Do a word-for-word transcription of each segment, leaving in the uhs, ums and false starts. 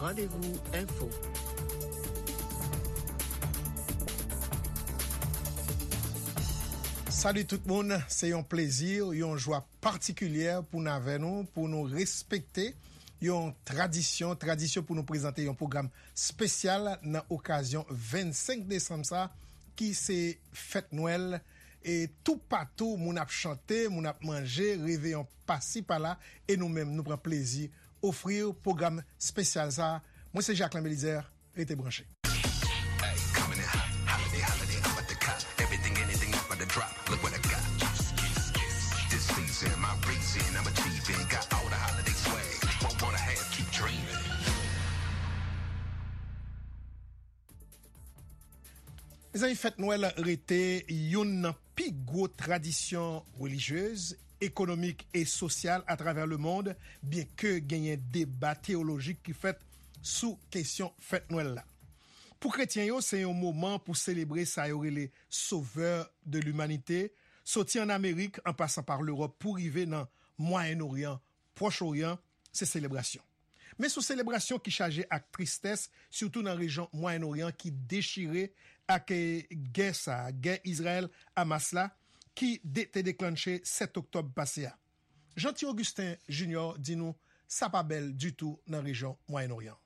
Randevou Enfo. Salut tout moun, se yon plezi, yon jwa patikilye pou n avè nou, pou nou respekte yon tradisyon, tradisyon pou nou prezante yon pwogram espesyal nan okazyon vennsenk desanm sa, ki se fèt Nwèl. E toupatou, moun ap chante, moun ap manje, reveyon pasi pala, e nou menm, nou pran plezi ofri w pwogram espesyal sa. Mwen se Jacquelin Belizaire, rete branche. Hey, coming in hot, holiday, holiday, I'm about to cop everything, anything, I'm about to drop. Look what I got. This season, my reason, I'm achieving. Got all the holiday swag. Won't wanna have, keep dreaming. Mezanmi, fèt Nwèl rete youn nan pi gwo tradisyon relijyez, ekonomik e sosyal atravè lemonn, byenke genyen deba teyolojik ki fèt sou kesyon fèt Nwèl la. Pou kretyen yo, se yon moman pou selebre sa yo rele Sauveur de l'humanité, soti ann Amerik, an pasan pa Lewòp pou rive nan Mwayen Oryan, Pwòch Oryan, se selebrasyon. Men se yon selebrasyon ki chaje ak tristès, sitou nan rejyon Mwayen Oryan ki dechire ak, eh, gè sa, gè Izrayèl-Hamas la, ki de, te deklanche sèt oktòb pase a. Jeanty Augustin Junior di nou sa pa bèl ditou nan rejyon Mwayen Oryan.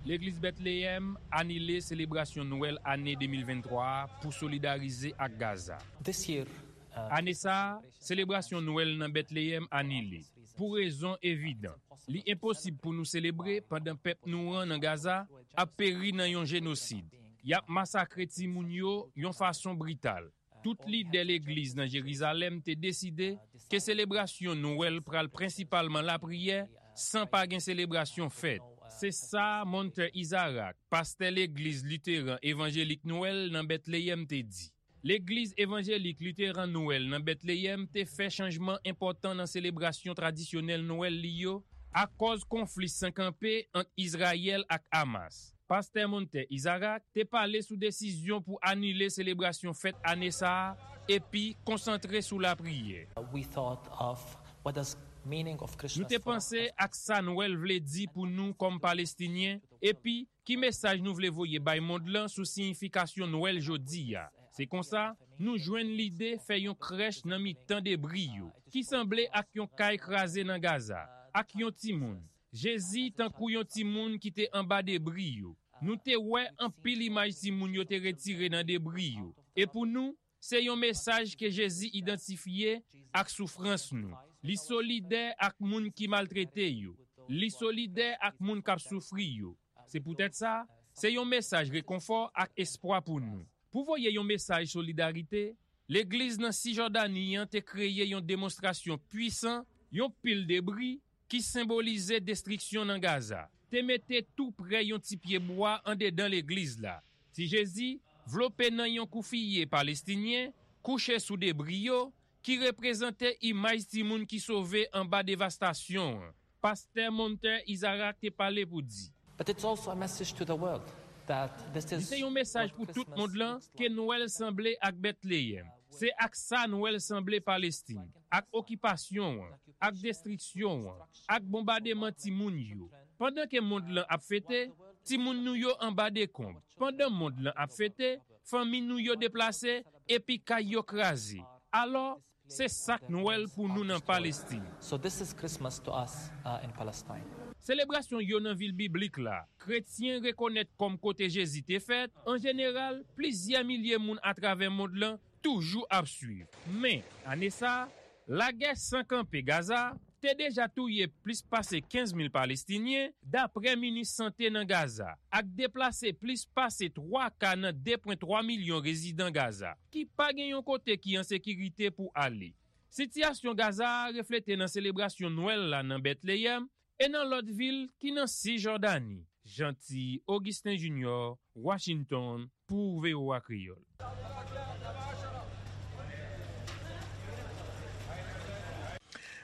Legliz Bètleyèm anile selebrasyon Nwèl ane de mil venntwa a pou solidarize ak Gaza. This year, uh, Ane sa a, selebrasyon Nwèl nan Bètleyèm anile, pou rezon evidan. Li enposib pou nou selebre pandan pèp nou an nan Gaza ap peri nan yon jenosid. Y ap masakre timoun yo yon fason brital. Tout lidè legliz nan Jerizalèm te deside ke selebrasyon Nwèl pral prensipalman lapriyè, san pa gen selebrasyon fèt. Se sa Monte Izarak, pastè legliz Literan Evanjelik Nwèl nan Bètleyèm, te di. Legliz Evanjelik Literan Nwèl nan Bètleyèm te fè chanjman enpòtan nan selebrasyon tradisyonèl Nwèl li yo akòz konfli san kanpe ant Izrayèl ak Hamas. Pastè Monte Izarak te pale sou desizyon pou anile selebrasyon fèt ane sa a epi konsantre sou lapriyè. We thought of what does meaning of Christmas Nou te panse ak sa Nwèl vle di pou nou kòm Palestinyen, epi ki mesaj nou vle voye bay mond lan sou siyifikasyon Nwèl jodi a. Se konsa, nou jwenn lide fè yon krèch nan mitan debri yo, ki sanble ak yon kay kraze nan Gaza, ak yon timoun. Jezi tankou yon timoun ki te anba debri yo. Nou te wè anpil imaj timoun yo te retire nan debri yo. E pou nou, se yon mesaj ke Jezi idantifye ak soufrans nou. Li solidè ak moun ki maltrete yo. Li solidè ak moun k ap soufri yo. Se poutèt sa, se yon mesaj rekonfò ak espwa pou nou. Pou voye yon mesaj solidarite, legliz nan Sijòdani an te kreye yon demonstrasyon pwisan, yon pil debri ki senbolize destriksyon nan Gaza, te mete tou prè yon ti pye bwa andedan legliz la. Ti Jezi, vlope nan yon koufiye palestinyen, kouche sou debri yo, ki reprezante imaj timoun ki sove anba devastasyon an. Pastè Monte Izarak te pale pou di. But it's also a message to the world that this Li is se yon mesaj what pou tout Christmas mond lan looks ke like. Nwèl sanble ak Betleyèm. Se ak sa Nwèl sanble Palestin, ak okipasyon an, ak destriksyon an, ak bonbademan timoun yo. Pandan ke mond lan ap fete, timoun nou yo anba dekonb. Pandan mond lan ap fete, fanmi nou yo deplase, epi kay yo kraze. Alò, se sa k Nwèl pou nou nan Palestin. So this is Christmas to us uh, in Palestine. Selebrasyon yo nan vil biblik la, kretyen rekonèt kòm kote Jezi te fèt, an jeneral, plizyè milye moun atravè mond lan toujou ap swiv. Men, ane sa a, lagè san kanpe Gaza te deja touye plis pase kenz mil Palestinyen, dapre minis sante nan Gaza, ak deplase plis pase twa ka nan de pwen twa milyon rezidan Gaza, ki pa gen yon kote ki an sekirite pou ale. Sitiyasyon Gaza a reflete nan selebrasyon Nwèl la nan Betleyèm e nan lòt vil ki nan Sijòdani. Jeanty Augustin Junior, Washington, pou V O A Kreyòl.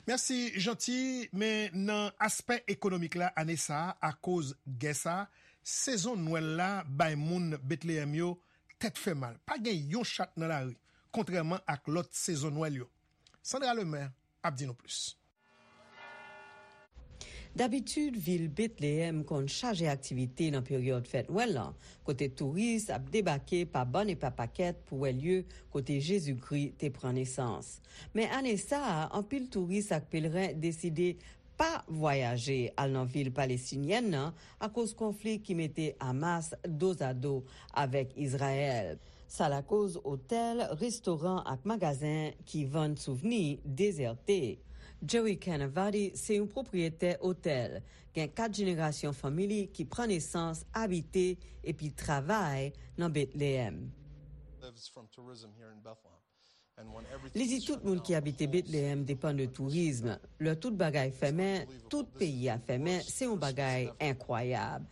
Mèsi Jeanty, men nan aspè ekonomik la ane sa a, akoz gè sa a, sezon Nwèl la bay moun Betleyèm yo tèt fè mal. Pa gen yon chat nan lari, kontrèman ak lòt sezon Nwèl yo. Sandra Lemaire ap di nou plis. Dabitid, vil Betleyèm konn chaje aktivite nan peryòd fèt Nwèl lan, kote touris ap debake pa bann e pa pakèt pou wè lye kote Jezikri te pran nesans. Men ane sa a, anpil touris ak pelren deside pa vwayaje al nan vil palestinyèn nan akoz konfli ki mete Hamas dozado avèk Izrayèl. Sa lakoz otèl, restoran ak magazen ki vann souvni dezète. Joey Canavati se yon pwopriyetè otèl. Gen kat jenerasyon fanmi li ki pran nesans, abite, epi travay nan Betleyèm. Li di tout moun ki abite Betleyèm depann de tourizm. Lè tout bagay fèmen, tout peyi a fèmen, se yon bagay enkwayab.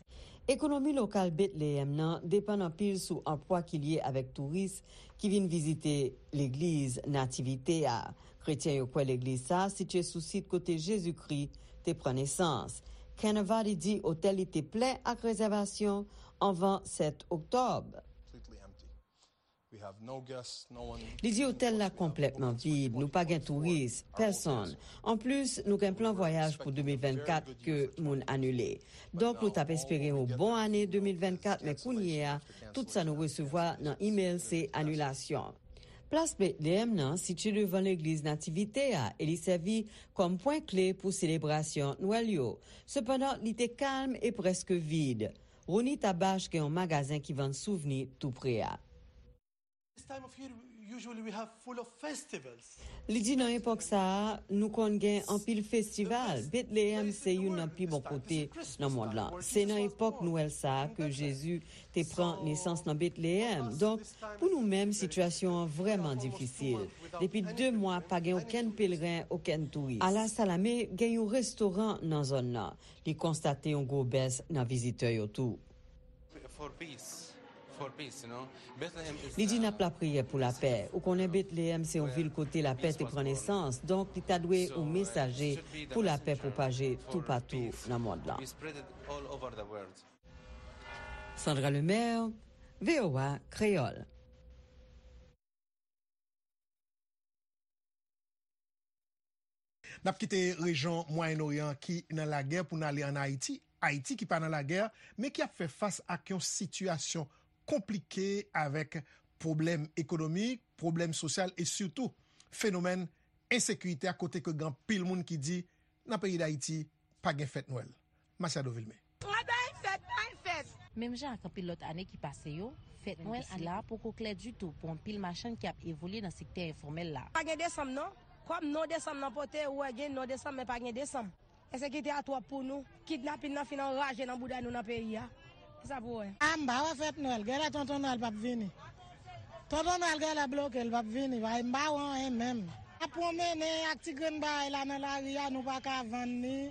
Ekonomi lokal Betleyèm nan depann anpil sou anplwa ki lye avèk touris ki vin vizite legliz Nativite a. Kretyen yo kwè legliz sa a sitiye sou sit kote Jezikri te pran nesans. Canavati di otèl li te plen ak rezèvasyon anvan sèt oktòb. Li di otèl la konplètman vid, nou pa gen touris, pèsonn. Anplis, nou gen plan vwayaj pou de mil vennkat ke moun anile. Donk, nou t ap espere yon bon ane de mil vennkat, men kounye a, tout sa nou resevwa nan imèl se anilasyon. Plas Betleyèm nan sitiye devan legliz Nativite a e li sèvi kòm pwen kle pou selebrasyon Nwèl yo. Sepandan, li te kalm e prèske vid. Ronnie Tabache gen yon magazen ki vann souvni tou pre a. This time of year, usually we have full of festivals. Li di nan epòk sa a, nou konn gen anpil festival. Betleyèm se youn nan pi bon kote nan mond lan. Se nan epòk Nwèl sa a ke Jezi te pran nesans nan Betleyèm. Donk, pou nou menm, sitiyasyon an vrèman difisil. Depi de mwa, pa gen okenn pelren, okenn touris. Ala Salame gen yon restoran nan zòn nan. Li konstate yon gwo bès nan vizitè yo tou. Li di n ap lapriyè pou lapè. Ou konnen Betleyèm se yon vil kote lapè te pran nesans, donk li ta dwe yon mesaje pou lapè pwopaje toupatou nan mond lan. Sandra Lemaire, V O A Kreyòl. N ap kite rejyon Mwayen Oryan ki nan lagè pou n ale ann Ayiti. Ayiti ki pa nan lagè, men ki ap fè fas ak yon sitiyasyon konplike avèk pwoblèm ekonomik, pwoblèm sosyal e sitou fenomèn ensekirite a kote ke gen anpil moun ki di nan peyi Dayiti pa gen fèt Nwèl. Machado Vilmé. Travay fèt, bay fèt. Menm jan ak anpil lòt ane ki pase yo, fèt Nwèl sila poko klè ditou pou anpil machann ki ap evolye nan sektè enfòmèl la. Pa gen desanm non. Kòm non desanm nan pote, ou wè gen non desanm men pa gen desanm. Ensekirite a twòp pou nou. Kidnapin nan fin anraje nan bouda nou nan peyi a. Kisa pou wè? A m pa wè fèt Nwèl. Genlè Tonton Nwèl p ap vini. Tonton Nwèl genlè bloke, l p ap vini. Paske m pa wè anyen menm. N ap pwonmennen ak ti grenn bagay la nan lari a, nou pa ka vann li.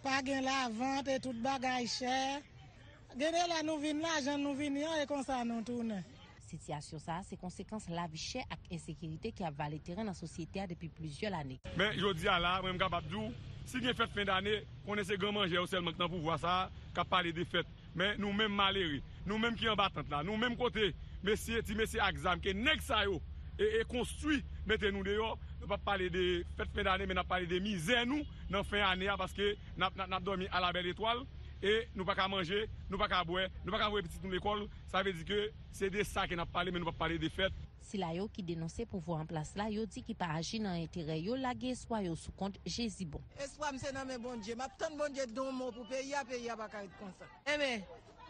Pa gen lavant e tout bagay chè. Gen de lè nou vin la, jan nou vini an, e konsa nou tounen. Sitiyasyon sa a se konsekans lavi chè ak ensekirite ki ap vale teren nan sosyete a depi plizyè lane. Men jodi a la, mwen m kapab di w, si gen fèt fen dane, konnen se gran manjè yo sèlman ki nan pouvwa sa a k ap pale de fèt. Men nou menm malere, nou menm ki anba tant la, nou menm kote mesye, ti mesye ak zam ke nèg sa yo e, e konstwi mete nou deyò, nou p ap pale de fèt fen dane, men n ap pale de mizè nou nan fen ane a, paske n ap, n ap, n ap dòmi a la bèl etwal, e nou pa ka manje, nou pa ka bwè, nou pa ka voye pitit nou lekòl, sa vle di ke se de sa ke n ap pale, men nou p ap pale de fèt. Sila yo ki denonse pouvwa an plas la, yo di ki pa aji nan enterè yo, lage espwa yo sou kont Jezi bon. Espwa m se nan men Bondye. M ap tann Bondye di yon mo pou peyi a, peyi a pa ka ret konsa. Enben,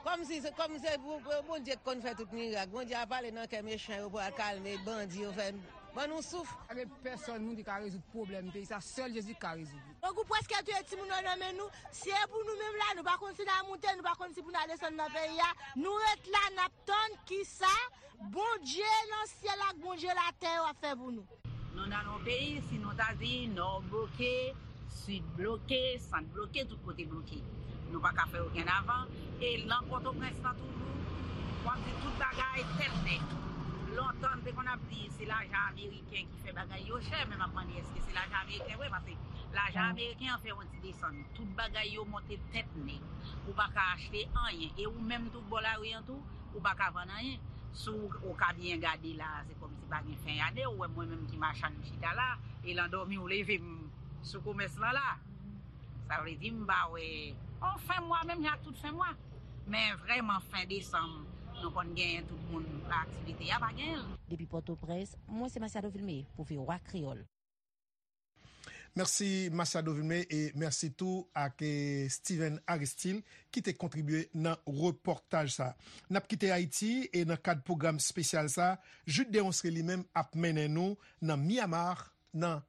kòmsi se, kòm se pou, pou Bondye k konn fè tout mirak. Bondye a pale nan kè mechan yo pou al kalme bandi yo, fè ban nou souf. Pa gen pèsòn moun ki ka rezoud pwoblèm peyi sa, sèl Jezi ki ka rezoud li. Grangou prèske touye timoun yo nan men nou. Si e pou nou menm la, nou pa konn si n a moute, nou pa konn si pou n a desann nan peyi a. Nou ret la, n ap tann kisa Bondye nan syèl ak Bondye latè yo ap fè pou nou. Nou nan yon peyi, si nou ta di Nò bloke, Sid bloke, Sant bloke, tout kote bloke. Nou pa ka fè okenn avan. E nan Pòtoprens lan toujou, w ap di tout bagay tèt nèg. Lontan n te konn ap di se lajan ameriken ki fè bagay yo chè, men m ap mande èske se lajan ameriken vre, paske lajan ameriken an fè yon ti desann. Tout bagay yo monte tèt nèg. Ou pa ka achte anyen. E ou menm tou k bò lari an tou, ou pa ka vann anyen. Si w, ou ka byen gade la, se kòmsi pa gen fen ane, ou wè mwen menm ki machann m chita la, e lan dòmi w leve m sou komès lan la. Sa vle di m pa wè yon fen mwa, menm jan ak tout fen mwa. Men vrèman fen desanm, nou konn genyen tout moun nan aktivite a, pa genyen l. Depi Pòtoprens, mwen se Masiado Vilmé pou V O A Kreyòl. Mèsi Masiado Vilmé e mèsi tou ak eh, Steven Aristil ki te kontribye nan repòtaj sa. N ap kite Ayiti e nan kad pwogram espesyal sa, Jude Deronceray li menm ap mennen nou nan Miramar, nan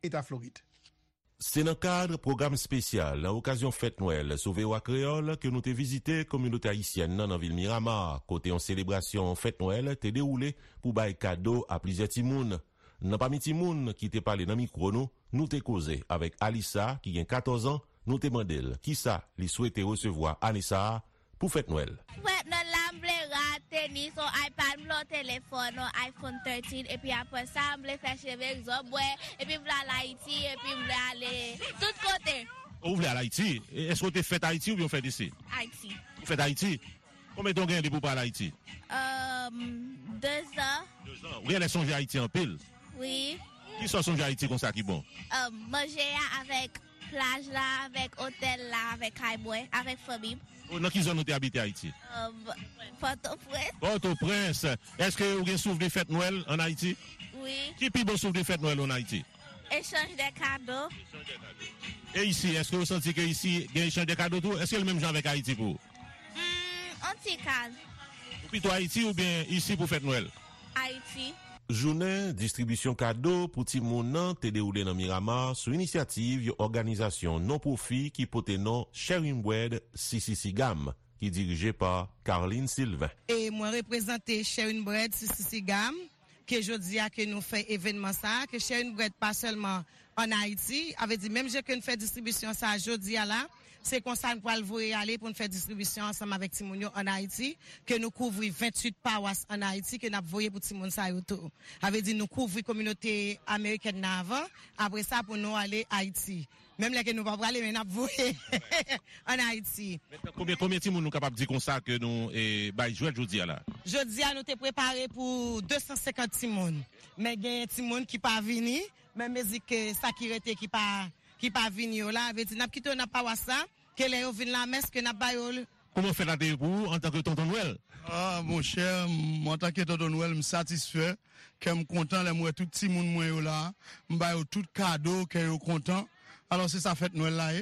Eta Florid. Se nan kad pwogram espesyal nan okazyon fèt Nwèl sou V O A Kreyòl ke nou te vizite kominote ayisyèn nan nan vil Miramar, kote yon selebrasyon fèt Nwèl te dewoule pou bay kado a plizyè timoun. Nan pami timoun ki te pale nan mikwo nou, nou te koze avèk Alisa, ki gen katòz an, nou te mande l kisa li swete resevwa ane sa a pou fèt Nwèl. Fèt Nwèl la, m vle rad, tenis, yon iPad, m vle yon telefòn, yon iPhone thirteen, epi apre sa, m vle fè cheve egzòt bwè, epi m vle al Ayiti, epi m vle ale tout kote. Ou vle al Ayiti? E, èske w te fèt Ayiti oubyen w fèt isit? Ayiti. Ou fèt Ayiti? Konbyen tan w gen depi w pa al Ayiti? Um, dezan. Dezan. Ou genlè sonje Ayiti anpil? Wi. Kisa w sonje Ayiti konsa ki bon? Um, manje a avèk plaj la, avèk otèl la, avèk kay mwen, avèk fanmi m. O, nan ki zòn ou te abite Ayiti? Um, Pòtoprens. Pòtoprens. Èske ou gen souvni fèt Nwèl ann Ayiti? Wi. Ki pi bon souvni fèt Nwèl ou ann Ayiti? Echanj de kado. E isi, èske ou santi ke isi gen echanj de kado tou? Èske l menm jan avèk Ayiti pou ou? Hmm, on ti kal. Ou pito Ayiti oubyen isi pou fèt Nwèl? Ayiti. Jounen distribisyon kado pou timoun nan te dewoule nan Miramar sou inisyativ yon òganizasyon non pwofi ki pote non Sharing Bread C C C GAM, ki dirije pa Carline Sylvain. E mwen reprezante Sharing Bread C C C GAM, ke jodi a ke nou fè evènman sa, ke Sharing Bread pa sèlman ann Ayiti, a vle di menm jan ke n fè distribisyon sa jodi a la, se konsa n pral voye ale pou n fè distribisyon ansanm avèk timoun yo ann Ayiti, ke nou kouvri venntuit pawas ann Ayiti ke n ap voye pou timoun sa yo tou. A vle di nou kouvri kominote amerikèn nan avan, apre sa pou nou ale Ayiti. Menm lè ke nou pa prale, men n ap voye ann Ayiti. Mentnan, konbyen, konbyen timoun nou kapab di konsa ke nou, eh, bay jwèt jodi a la? Jodi a, nou te prepare pou de san senkant timoun. Men genyen timoun ki pa vini, men mezi ke sa ki rete ki pa, ki pa vini yo la, vle di n ap kite yo nan pawas la, ke lè yo vin lamès, ke n ap ba yo l. Kòman fèt la te ye pou ou antanke Tonton Nwèl? Ah, monchè, m, antanke Tonton Nwèl, m satisfè. Kè m kontan lè m wè tout timoun mwen yo la. M ba yo tout kado, kè yo kontan. Alò, se sa fèt Nwèl la ye.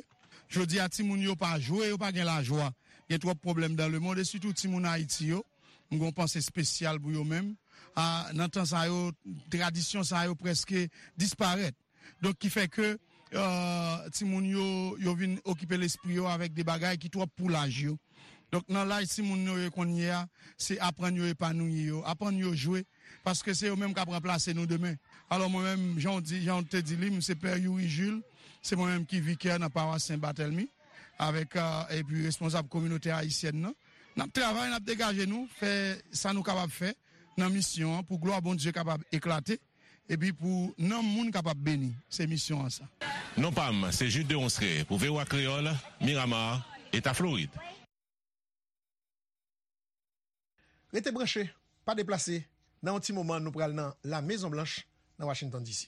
Jodi a, timoun yo pa jwe, yo pa gen lajwa. Gen twòp pwoblèm dans le monde, e sitou timoun Ayiti yo. M gen yon panse espesyal pou yo menm. A, nan tan sa yo, tradisyon sa yo prèske disparèt. Donk, ki fè ke, euh, timoun yo, yo vin okipe lespri yo avèk de bagay ki twòp pou laj yo. Donk, nan laj timoun yo ye kounye a, se aprann yo epanouyi yo, aprann yo jwe, paske se yo menm k ap ranplase nou demen. Alò, mwen menm, jan w di, jan w te di li, m se Pè Youri Jules, se mwen menm ki vikè nan pawas Sen Batèlmi, avèk, euh, epi responsab kominote ayisyèn nan. N ap travay, n ap degaje nou, fè sa nou kapab fè nan misyon an, pou glwa Bondye kapab eklate. Epi pou nanm moun kapab beni. Se misyon an sa. Non pa m, se Jude Deronceray pou V O A Kreyòl, Miramar, Eta Florid. Rete branche, pa deplase. Nan yon ti moman, nou pral nan La Mezon Blanch, nan Washington D C.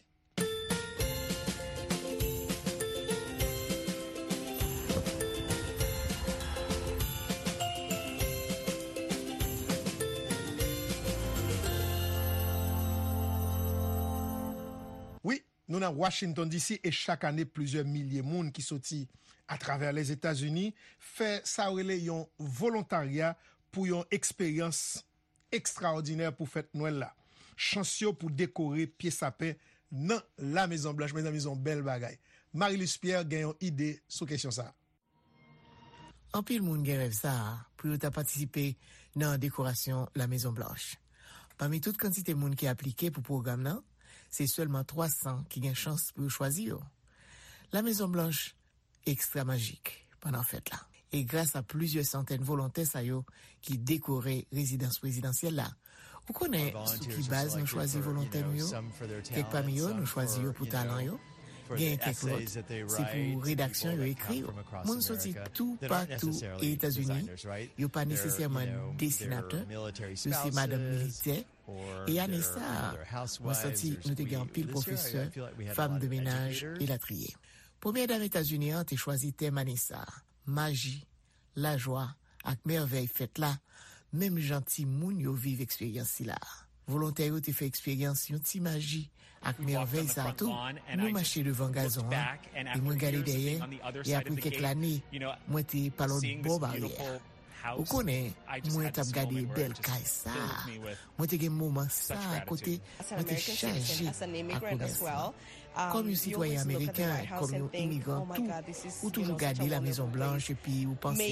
Wi, nou nan Washington D C e chak ane, plizyè milye moun ki soti atravè Lèzetazini fè sa yo rele yon volontarya pou yon eksperyans ekstraòdinè pou fèt Nwèl la. Chans yo pou dekore pye sapen nan La Mezon Blanch, mezanmi, se yon bèl bagay. Marie-Luce Pierre gen yon ide sou kesyon sa a. Anpil moun gen rèv sa a pou yo ta patisipe nan dekorasyon La Mezon Blanch. Pami tout kantite moun ki aplike pou pwogram nan, se sèlman twa san ki gen chans pou yo chwazi yo. La Mezon Blanch ekstra majik pandan fèt la. E gras a plizyè santèn volontè sa yo ki dekore rezidans prezidansyèl la, ou konnen sou ki baz nou chwazi volontè nou yo? Kèk pami yo, nou chwazi yo pou talan yo. Gen kèk lòt, se pou redaksyon yo ekri yo. Moun soti toupatou Etazini, yo pa nesesèman desinatè, yo se madanm militè. E ane sa a, mwen santi nou te gen anpil pwofesè, fanm de menaj, elatriye. Premyè dam Etazini an te chwazi tèm ane sa a, maji, lajwa ak mèvèy fèt la, menm jan timoun yo viv eksperyans sila a. Volontè yo te fè eksperyans yon ti maji ak mèvèy sa a tou. Nou mache devan gazon an, e mwen gade dèyè, e apre kèk lane, mwen te pa lòt bò baryè a. Ou konnen, mwen t ap gade bèl kay sa a. Mwen te gen moman sa a kote mwen te chaje ak remèsiman. Kòm yon sitwayen ameriken, kòm yon imigran tou, ou toujou gade La Maison Blanche epi ou panse,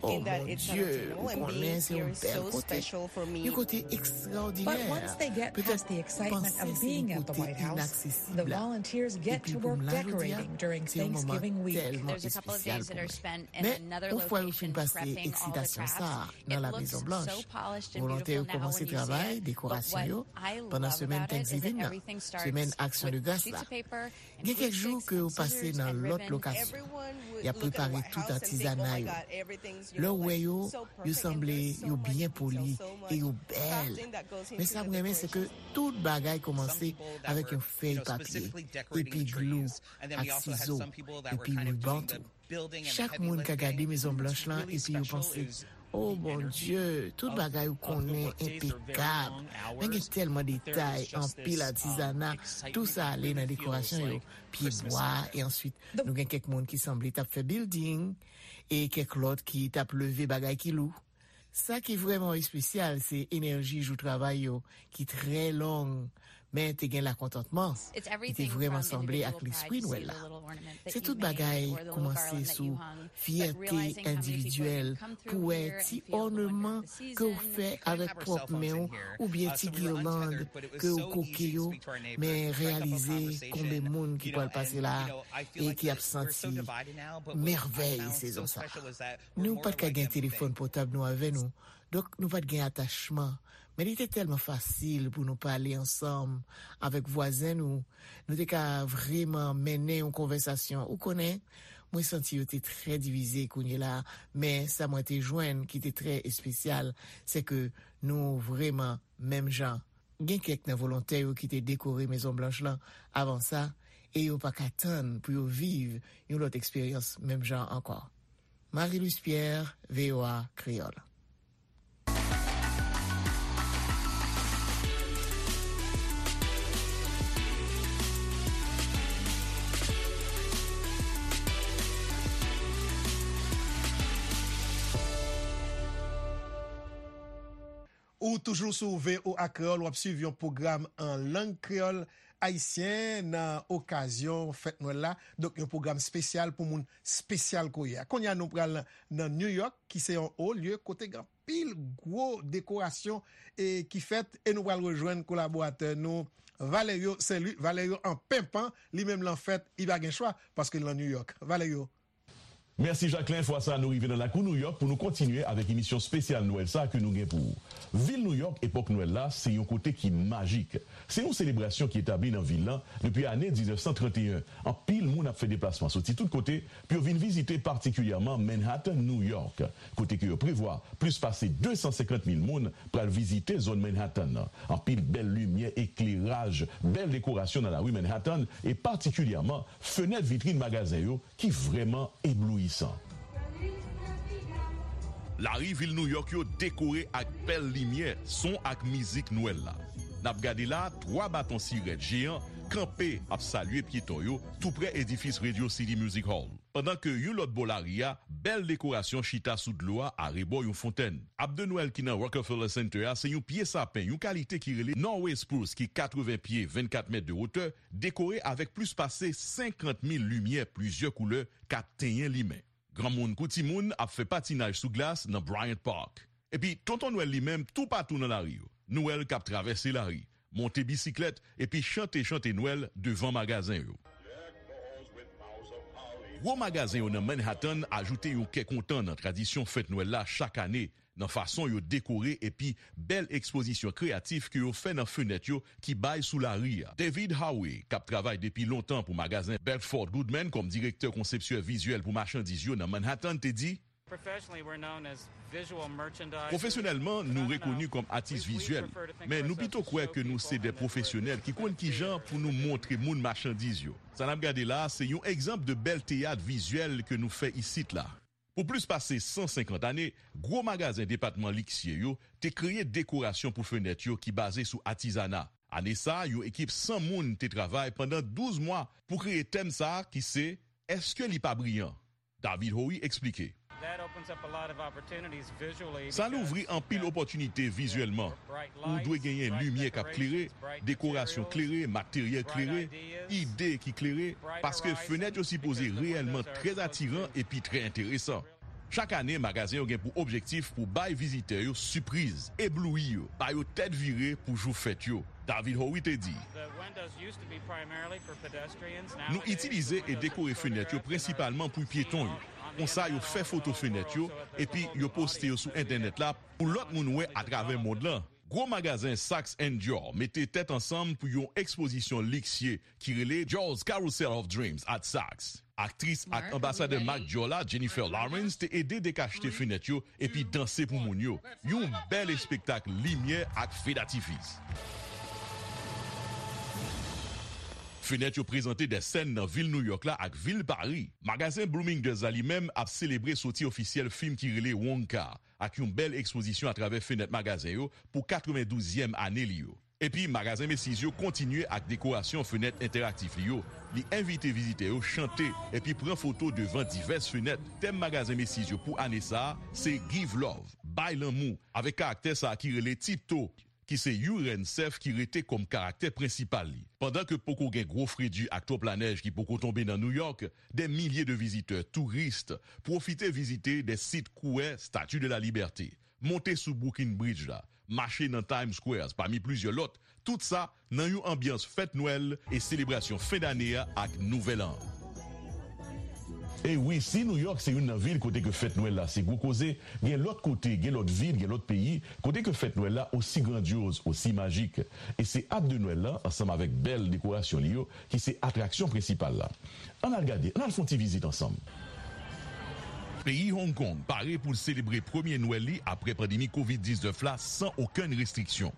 "Oh mon Dye, ou konnen se yon bèl kote, yon kote ekstraòdinè." Petèt, panse se yon kote inaksesib la. Epi pou m la jodi a, se yon moman tèlman espesyal pou mwen. Men, yon fwa yo fin pase eksitasyon sa a nan La Maison Blanche, volontè yo kòmanse travay dekorasyon yo pandan semèn Thanksgiving nan, semèn aksyon de gras la. Gen kèk jou ke yo pase nan lòt lokasyon. Y ap prepare tout atizana yo. Lè w wè yo, yo sanble yo byen poli e yo bèl. Men sa m renmen, se ke tout bagay kòmanse avèk yon fèy papye, epi glou, ak sizo, epi riban tou. Chak moun ka gade Mezon Blanch lan epi yo panse, "O Bondye, tout bagay ou konnen enpekab." Men gen tèlman detay, anpil atizana, tou sa ale nan dekorasyon yo, pyebwa, e answit nou gen kèk moun ki sanble t ap fè bilding, e kèk lòt ki t ap leve bagay ki lou. Sa ki vrèman espesyal, se enèji jou travay yo ki trè long, men te gen lakontantman. Li te vrèman sanble ak lespri Nwèl la. Se tout bagay kòmanse sou fyète endividyèl pou wè ti òneman ke w fè avèk pwòp men w oubyen ti girland ke w koke yo, men reyalize konbe moun ki pral pase la e ki ap santi mèvèy sezon sa a. Nou pa t ka gen telefòn pòtab nou avè nou, donk nou pa t gen atachman. Men li te tèlman fasil pou nou pale ansanm avèk vwazen nou. Nou te ka vrèman mennen yon konvèsasyon. Ou konnen, mwen santi yo te trè divize kounye la a, men sa mwen te jwenn ki te trè espesyal, se ke nou vrèman menm jan. Gen kèk nan volontè yo ki te dekore Mezon Blanch lan avan sa, e yo pa ka tann pou yo viv yon lòt eksperyans menm jan ankò. Marie-Luce Pierre, V O A Kreyòl. Ou toujou sou V O A Kreyòl, w ap swiv yon pwogram an lang kreyòl ayisyen nan okazyon fèt Nwèl la. Donk, yon pwogram espesyal pou moun espesyal ke w ye a. Kounye a, nou pral nan New York, ki se yon wo lye kote gen anpil gwo dekorasyon e ki fèt, e nou pral rejwenn kolaboratè nou, Valerio Saint-Louis. Valerio an penpan, li menm l an fèt, li pa gen chwa, paske l nan New York. Valerio. Mèsi, Jacquelin. Fwa sa a, nou rive nan lakou New York pou nou kontinye avèk emisyon espesyal Nwèl sa a ke nou gen pou ou. Vil New York, epòk Nwèl la, se yon kote ki majik. Se yon selebrasyon ki etabli nan vil lan depi ane diznèf san tranteyen. Anpil moun ap fè deplasman soti tout kote pou yo vin vizite, patikilyèman Manhattan, New York, kote ke yo prevwa plis pase de san senkant mil moun pral vizite zòn Manhattan nan. Anpil bèl limyè, ekleraj, bèl dekorasyon nan lari Manhattan, e patikilyèman fenèt vitrin magazen yo ki vrèman eblouyisan. Lari vil New York yo dekore ak bèl limyè, son ak mizik Nwèl la. N ap gade la, twa baton sirèt jeyan kanpe ap salye pyeton yo toupre edifis Radio City Music Hall. Pandan ke yon lòt bò lari a, bèl dekorasyon chita sou dlo a arebò yon fontèn. Ab de Nwèl ki nan Rockefeller Center a se yon pye sapen, yon kalite ki rele Norway Spruce ki katreven pye, vennkat mèt de wotè, dekore avèk plis pase senkant mil limyè plizyè koulè k ap tenyen limen. Granmoun kou timoun ap fè patinaj sou glas nan Bryant Park. Epi Tonton Nwèl li menm toupatou nan lari yo. Nwèl k ap travèse lari, monte bisiklèt, epi chante chante Nwèl devan magazen yo. Gwo magazen yo nan Manhattan ajoute yon kè kontan nan tradisyon fèt Nwèl la chak ane, nan fason yo dekore epi bèl ekspozisyon kreyatif ke yo fè nan fenèt yo ki bay sou lari a. David Howe, k ap travay depi lontan pou magazen Bergdorf Goodman kòm direktè konsepsyè vizyèl pou machandiz yo nan Manhattan, te di, Pwofesyonèlman, nou rekoni kòm atis vizyèl, men nou pito kwè ke nou se de pwofesyonèl ki konn kijan pou nou montre moun machandiz yo. Sa n ap gade la a, se yon egzanp de bèl teyat vizyèl ke nou fè isit la. Pou plis pase san senkant ane, gwo magazen depatman liksye yo te kreye dekorasyon pou fenèt yo ki baze sou atizana. Ane sa a, yon ekip san moun te travay pandan douz mwa pou kreye tèm sa a ki se, "Èske li pa briyan?" David Hoey eksplike. Sa louvri anpil opòtinite vizyèlman. Ou dwe genyen limyè k ap klere, dekorasyon klere, materyèl klere, ide ki klere, paske fenèt yo sipoze reyèlman trè atiran epi trè enteresan. Chak ane, magazen yo gen pou objektif pou bay vizitè yo sipriz, eblouyi yo, ba yo tèt vire pou jou fèt yo. David Hoey te di, "Nou itilize e dekore fenèt yo prensipalman pou pyeton yo. Konsa, yo fè foto fenèt yo, epi yo poste yo sou entènèt la pou lòt moun wè atravè mond lan." Gwo magazen Saks and Dior mete tèt ansanm pou yon ekspozisyon liksye ki rele Dior's Carousel of Dreams at Saks. Aktris ak anbasadè mak Dior la, Jennifer Lawrence, te ede dekachte fenèt yo epi danse pou moun yo. Yon bèl espektak limyè ak fedatifis. Fenèt yo prezante de sèn nan vil Nouyòk la ak vil Pari. Magazen Bloomingdale's la li menm ap selebre soti ofisyèl fim ki rele Wonka, ak yon bèl ekspozisyon atravè fenèt magazen yo pou katrevenndouzyèm ane li yo. Epi, magazen Macy's yo kontinye ak dekorasyon fenèt entèraktif li yo. Li envite vizitè yo chante epi pran foto devan divès fenèt. Tèm magazen Macy's yo pou ane sa a se Give Love, Bay Lanmou, avèk karaktè sa a ki rele Tiptoe, ki se yon rèn sèf ki rete kòm karaktè prensipal li. Pandan ke poko gen gwo fredi ak twòp lanèj ki poko tonbe nan Nouyòk, dè milye de vizitè, touris, pwofite vizite dè sit kouwè Statue de la Liberté, monte sou Brooklyn Bridge la, mache nan Times Square, pami plizyè lòt, tout sa nan yon anbyans fèt Nwèl e selebrasyon fen dane a ak Nouvèl An. E wi, si Nouyòk se youn nan vil kote ke fèt Nwèl la se gwo koze, gen lòt kote, gen lòt vil, gen lòt peyi, kote ke fèt Nwèl la osi grandyoz, osi majik. E se Ab de Nwèl la, ansanm avèk bèl dekorasyon li yo, ki se atraksyon prensipal la. Ann al gade, ann al fè yon ti vizit ansanm. Peyi Hong Kong pare pou l selebre premye Nwèl li apre pandemi kovid diznèf la san okenn restriksyon.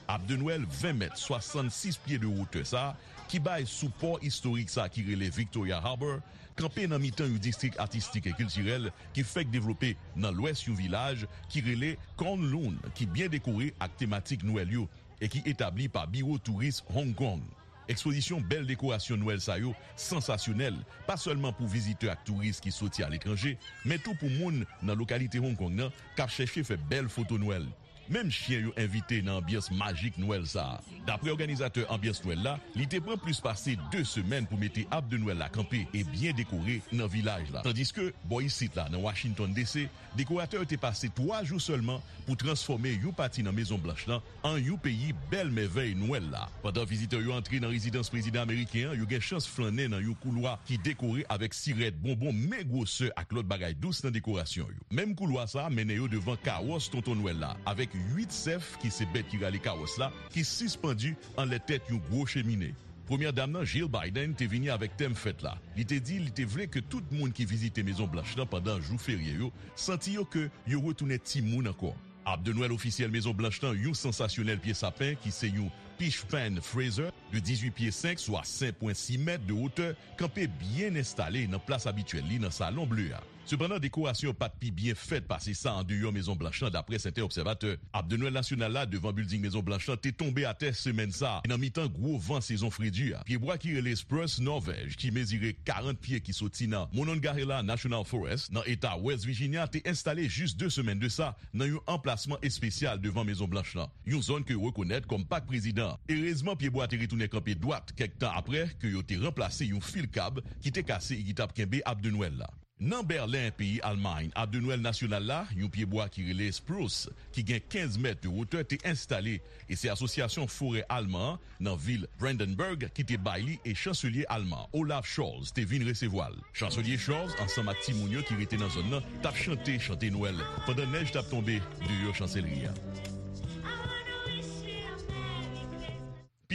Ab de Nwèl ven mèt, swasannsis pye de wotè sa a, ki bay sou pò istorik sa a ki rele Victoria Harbour, kanpe nan mitan yon distrik atistik e kiltirèl ki fèk devlope nan lwès yon vilaj ki rele Kowloon, ki byen dekore ak tematik Nwèl yo e ki etabli pa Biwo Touris Hong Kong. Ekspozisyon bèl dekorasyon Nwèl sa yo sansasyonèl, pa sèlman pou vizitè ak touris ki soti aletranje, men tou pou moun nan lokalite Hong Kong nan k ap chèche fè bèl foto Nwèl. Menm chen yo envite nan anbyans majik Nwèl sa a. Dapre òganizatè anbyans Nwèl la, li te pran plis pase de semèn pou mete Ab de Nwèl la kanpe e byen dekore nan vilaj la. Tandiske, bò isit la, nan Washington D C, dekoratè yo te pase twa jou sèlman pou transfòme yon pati nan Mezon Blanch lan an yon peyi bèl mèvèy Nwèl la. Pandan vizitè yo antre nan rezidans prezidan ameriken an, yo gen chans flannen nan yon koulwa ki dekore avèk sirèt, bonbon, men gwosè ak lòt bagay dous nan dekorasyon yo. Menm koulwa sa a mennen yo devan kawòs Tonton Nwèl la, avèk uit sèf, ki se bèt ki rale kawòs la, ki sispandi anlè tèt yon gwo chemine. Premyè dam nan, Jill Biden, te vini avèk tèm fèt la. Li te di li te vle ke tout moun ki vizite Mezon Blanch lan pandan jou ferye yo santi yo ke yo retounen timoun ankò. Ab de Nwèl ofisyèl Mezon Blanch lan, yon sansasyonèl pye sapen ki se yon Peach Pan Fraser de dizuit pye senk, swa senk pwen sis mèt de wotè, kanpe byen enstale nan plas abityèl li nan Salon Ble a. Sepandan, dekorasyon yo pa t pi byen fèt pase sa andeyò Mezon Blanch lan, dapre sèten obsèvatè. Ab de Nwèl nasyonal la devan bilding Mezon Blanch lan te tonbe atè semèn sa a, nan mitan gwo van sezon fredi a. Pyebwa ki rele Spruce Norvèj, ki mezire karant pye, ki soti nan Monongahela National Forest, nan eta West Virginia, te enstale jis de semèn de sa, nan yon anplasman espesyal devan Mezon Blanch lan, yon zòn ke yo rekonèt kòm pak prezidan an. Erezman, pyebwa te retounen kanpe dwat kèk tan apre ke yo te ranplase yon fil kab ki te kase e ki t ap kenbe Ab de Nwèl la. Nan Bèlen, peyi Almay, Ab de Nwèl nasyonal la, yon pyebwa ki rele spruce, ki gen kenz mèt de wotè, te enstale, e se Asosyasyon Forè Alman an nan vil Brandenburg ki te bay li, e chanselye alman Olaf Scholz te vin resevwa l. Chanselye Scholz, ansanm ak timoun yo ki rete nan zòn nan, t ap chante chante Nwèl pandan nèj t ap tonbe deyò chanselri a.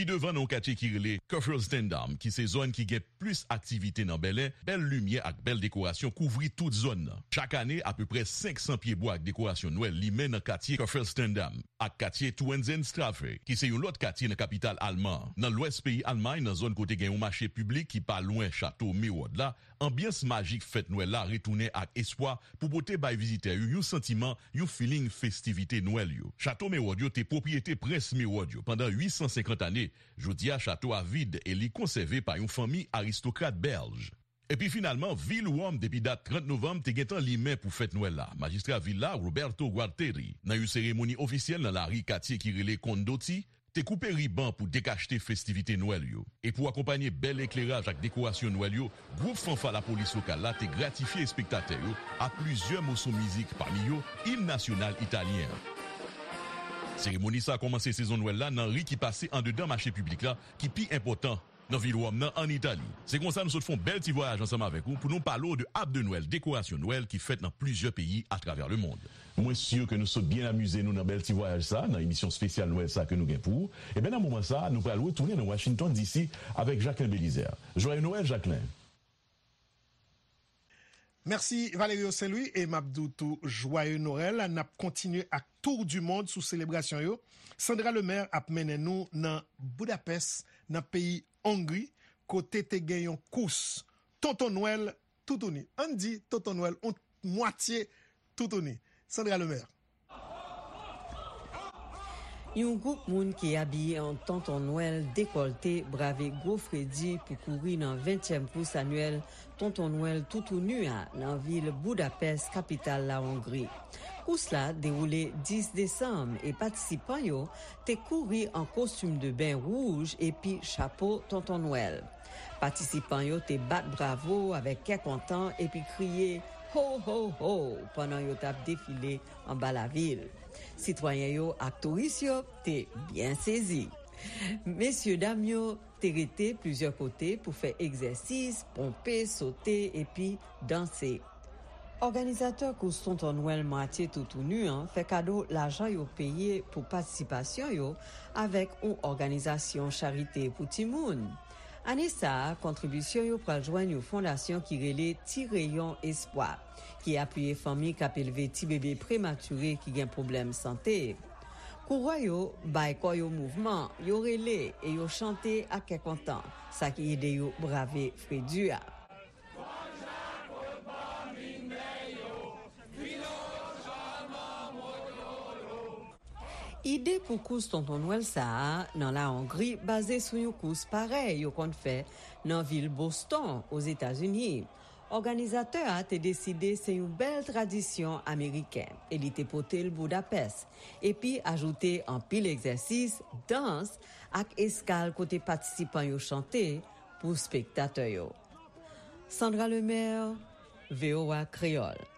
Devan nan yon katye ki rele Kufferstendam, ki se zòn ki gen plis aktivite nan Bèlen, bèl limyè ak bèl dekorasyon kouvri tout zòn nan. Chak ane, apeprè senk san pye bwa ak dekorasyon Nwèl limen nan katye Kufferstendam ak katye Tuenzenstrafe, ki se yon lòt katye nan kapital alman an. Nan lwès peyi Almay, nan zòn kote gen yon mache piblik ki pa lwen chato Mewòd la, anbyans majik fèt Nwèl la retounen ak espwa pou pote bay vizitè yo yon santiman, yon feeling festivite Nwèl yo. Chato Mewòd yo te pwopriyete prens Mewòd yo pandan uit san senkant ane. Jodi a, chato a vid e li konsève pa yon fanmi aristokrat bèlj. Epi finalman, vil Wòm depi dat trant novanm te gentan limen pou fèt Nwèl la. Majistra vil la, Roberto Gualtieri, nan yon seremoni ofisyèl nan lari katye ki rele Condotti, te koupe riban pou dekachte festivite Nwèl yo. E pou akonpanye bèl ekleraj ak dekorasyon Nwèl yo, gwoup fanfa lapolis lokal la te gratifye espektatè yo ak plizyè moso mizik, pami yo im nasyonal italyen an. Seremoni sa a kòmanse sezon Nwèl la nan ri ki pase andedan mache piblik la, ki pi enpòtan nan vil Wòm nan, ann Itali. Se konsa nou sot fè yon bèl ti vwayaj ansanm avèk ou pou nou pale w de ab de Nwèl, dekorasyon Nwèl ki fèt nan plizyè peyi atravè lemonn. Mwen si ke nou sot byen amize nou nan bèl ti vwayaj sa, nan emisyon espesyal Nwèl sa ke nou gen pou ou. Ebyen, nan moman sa, nou pral retounen nan Washington D C avèk Jacquelin Belizaire. Joyeux Noël, Jacquelin! Mèsi, Valerio Saint-Louis, e m ap di w tou, Joyeux Noël. N ap kontinye ak Tour du Monde sou selebrasyon yo. Sandra Lemaire ap mennen nou nan Boudapès, nan peyi Ongri, kote te gen yon kous Tonton Nwèl toutouni. Ann di Tonton Nwèl, yon mwatye toutouni. Sandra Lemaire. Yon gwoup moun ki abiye an Tonton Nwèl dekòlte brave gwo fredi pou kouri nan ventyèm kous anyèl Tonton Nwèl toutouni a nan vil Boudapès, kapital Lawongri. Kous la dewoule dis desanm e patisipan yo te kouri an kostim de ben wouj epi chapo Tonton Nwèl. Patisipan yo te bat bravo avèk kè kontan epi kriye "Ho, ho, ho" pandan yo t ap defile anba lavil. Sitwayen yo ak touris yo te byen sezi. Mesyedam yo te rete plizyè kote pou fè egzèsis, ponpe, sote epi danse. Òganizatè kous Tonton Nwèl mwatye toutouni an fè kado lajan yo peye pou patisipasyon yo avèk yon òganizasyon charite pou timoun. Ane sa a, kontribisyon yo pral jwenn yon fondasyon ki rele Ti Reyon Espwa, ki apiye fanmi k ap elve ti bebe prematire ki gen pwoblèm sante. Kourè yo bay kò yo mouvman, yo rele e yo chante ak kè kontan, sa ki ede yo brave fredi a. Ide pou kous Tonton Nwèl sa a nan Lawongri baze sou yon kous parèy yo konn fè nan vil Boston, Ozetazini. Òganizatè a te deside se yon bèl tradisyon ameriken e li te pote l Boudapès, epi ajoute anpil egzèsis, dans ak eskal kote patisipan yo chante pou spektatè yo. Sandra Lemaire, V O A Kreyòl.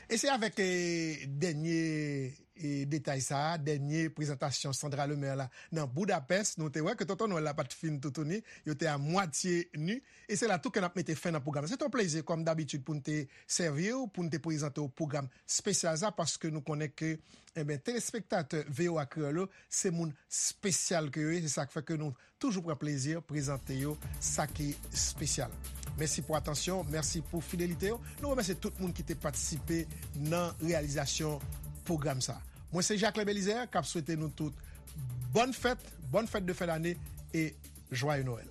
E se avèk, eh, dènye e detay sa a, dènye prezantasyon Sandra Lemaire la nan Boudapès, nou te wè ke Tonton Nwèl la pa t fin toutouni, yo te a mwatye ni. E se la tou ke n ap mete fen nan pwogram. Se te yon plezi, kòm dabitid, pou n te sèvi w, pou n te prezante w pwogram espesyal sa, paske nou konnen ke, enben, telespektatè V O A Kreyòl yo, se moun espesyal ke yo ye. Se sa k fè ke nou toujou pran plezi prezante yo sa ki espesyal. Mèsi pou atansyon, mèsi pou fidelite yo. Nou remèsye tout moun ki te patisipe nan reyalizasyon pwogram sa. Mwen se Jacquelin Belizaire k ap swete nou tout bòn fèt, bòn fèt de fen dane e jwaye Nwèl.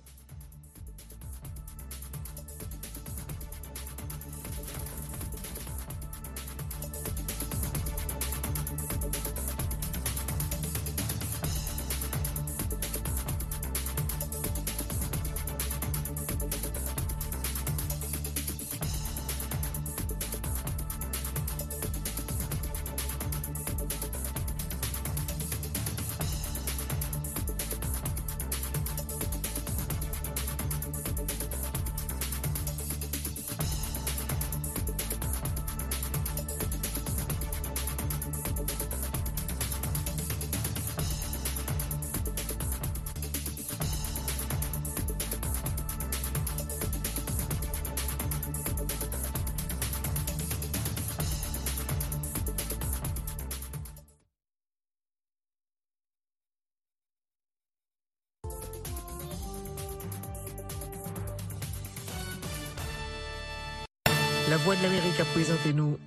Lavwadlamerik ap prezante nou